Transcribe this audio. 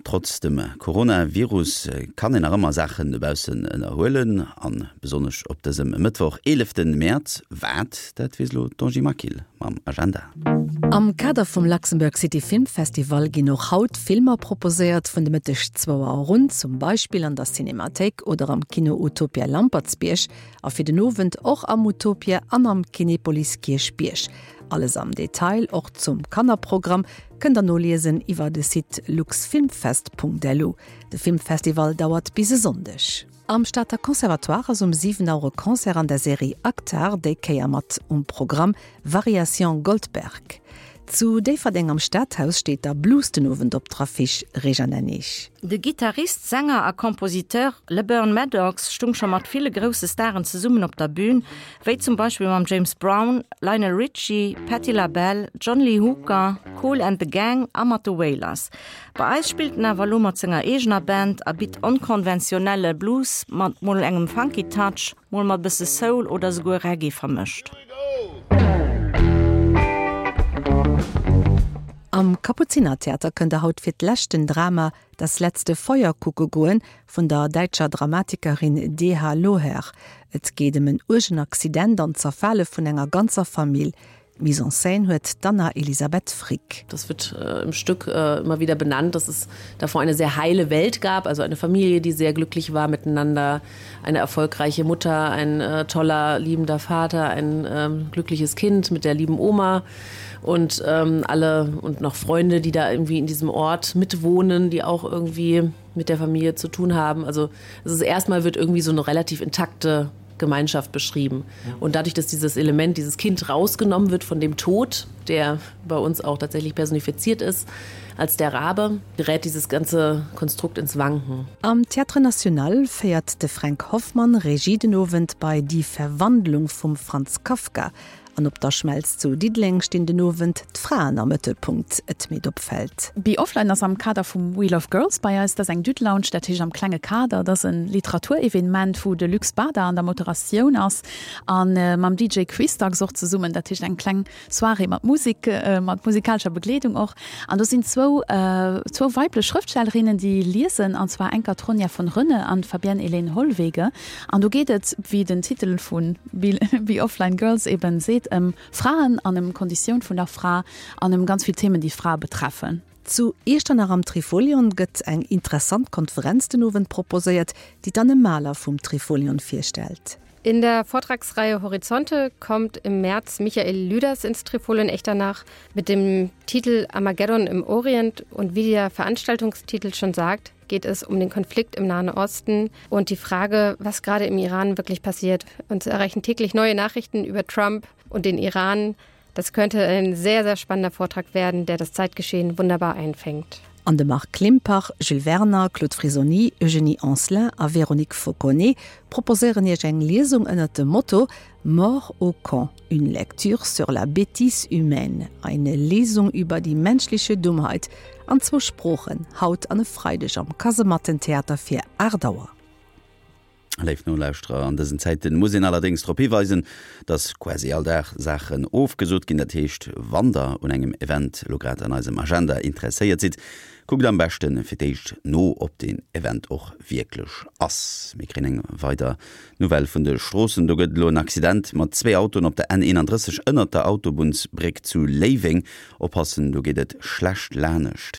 Trotz dem Coronavirus kann een nach ëmmer Saachen dobaussen ënnerhuelen, an besonnesch op dësem Mëttwoch, 11 Mäerz. Wat, dat weess elo d'Angie Maquil mam Agenda. Am Kader vum Luxembourg City Film Festival ginn och haut Filmer proposéiert, vun de Mëtteg zwou Auer un, zum Beispill an der Cinemathéik oder am Kino Utopia Lampertsbierg a fir den Owend och am Utopia an am Kinepolis Kierchbierg. Alles am Detail, och zum Kannerprogramm, kënnt der noliesen iwwer de Site luxfilmfest.lu. De Filmfestival dauert bis e Sonndeg. Am Stater Conservatoire ass um 7 Auer e Concert an der Serie Actar, déi Kéier mat um Programm Variations Goldberg. Zu Déifferdeng am Stadhaus steet da Blues den Owend op der Affiche, Réjane Hennig. De Gittarist, Sänger a Kompositeur LeBern Maddox stung scho mat ville grousse Staren zesummen op der Bün, wéi zum Beispill mam James Brown, Lionel Richie, Patti LaBelle, John Lee Hooker, Kool and the Gang a mat de Wailers. Bei eis spillt en awer elo mat senger eegener Band a bitt onkonventionelle Blues mat mol engem funky Touch, mol mat bësse Soul oder souguer Reggae vermëscht. Am Kapuzinertheater kënnt der haut fir d'lescht den Drama Das letzte Feuer kucke goen vun der däitscher Dramatikerin DH. Loher. Et geet ëm en uergen Accident an d'Zerfale vun enger ganzer Famill. D'Mise en scène huet d'Anna Elisabeth Frick. Das wird im Stück immer wieder benannt, dass es davor eine sehr heile Welt gab, also eine Familie, die sehr glücklich war miteinander, eine erfolgreiche Mutter, ein toller liebender Vater, ein glückliches Kind mit der lieben Oma und ähm, alle und noch Freunde, die da irgendwie in diesem Ort mitwohnen, die auch irgendwie mit der Familie zu tun haben. Also es ist erstmal wird irgendwie so eine relativ intakte Gemeinschaft beschrieben. Und dadurch, dass dieses Element, dieses Kind rausgenommen wird von dem Tod, der bei uns auch tatsächlich personifiziert ist, als der Rabe, gerät dieses ganze Konstrukt ins Wanken. Am Théâtre National féiert de Fränk Hoffmann Regie den Owend bei Die Verwandlung vum Franz Kafka. An op der Schmelz zu Diddeleng stinn den Owend d'Fraen am Mëttelpunkt. Et meet opfält. Be Offline ass am Kader vum We Love Girls bei eis. Dat ass eng Düt-Lounge, dat heescht am klenge Kader. Dat ass e Literaturevenement, wou de Luc Spada an der Moderatioun ass a mam DJ Quistax och zesummen. Dat heescht eng kleng Soirée mat Musek, mat musikalescher Begleedung och. An do sinn zwou, zwou weiblech Schrëftstellerinnen, déi liesen, an zwar enker d'Ronja von Rönne an d'Fabienne Hélène Hollwege. An do geet et, wéi den Titel vu Be Offline Girls eben seet, ëm Fraen an ëm d'Konditioun vun der Fra an ëm ganz vill Themen, déi d'Frae betreffen. Zu Iechternach am Trifolion gëtt eng interessant Konferenz den Owend proposéiert, déi d'Anne Mahler vum Trifolion virstellt. In der Vortragsreihe Horizonte kommt im März Michael Lüders ins Trifolion Echternach mit dem Titel Armageddon im Orient und wie der Veranstaltungstitel schon sagt, geht es um den Konflikt im Nahen Osten und die Frage, was gerade im Iran wirklich passiert. Uns erreichen täglich neue Nachrichten über Trump und den Iran. Das könnte ein sehr, sehr spannender Vortrag werden, der das Zeitgeschehen wunderbar einfängt. An de Marc Klimpach, Jules Werner, Claude Frisoni, Eugénie Anselin a Véronique Fauconnet proposéieren Iech eng Liesung ënnert dem Motto Mort au con, une lecture sur la bêtise humaine, eine Lesung über die menschliche Dummheit an zwou Sproochen, haut an e Freideg am Kasemattentheater fir 8 Auer. Léif Nolauschterer, an dësen Zäiten muss een allerdéngs drop hiweisen, dass quasi all Dag Saachen ofgesot ginn. Dat heescht, wann der un engem Event elo grad an eisem Agenda interesséiert sidd, kuckt am beschte fir d'éischt no, ob deen Event och wierklech ass. Mir kréien eng weider Nouvelle vun de Stroossen, Do gëtt elo en Accident mat zwee Autoen op der N 31 ënnert der Autobunnsbréck zu Léiweng. Oppassen, do geet et schlecht lanescht.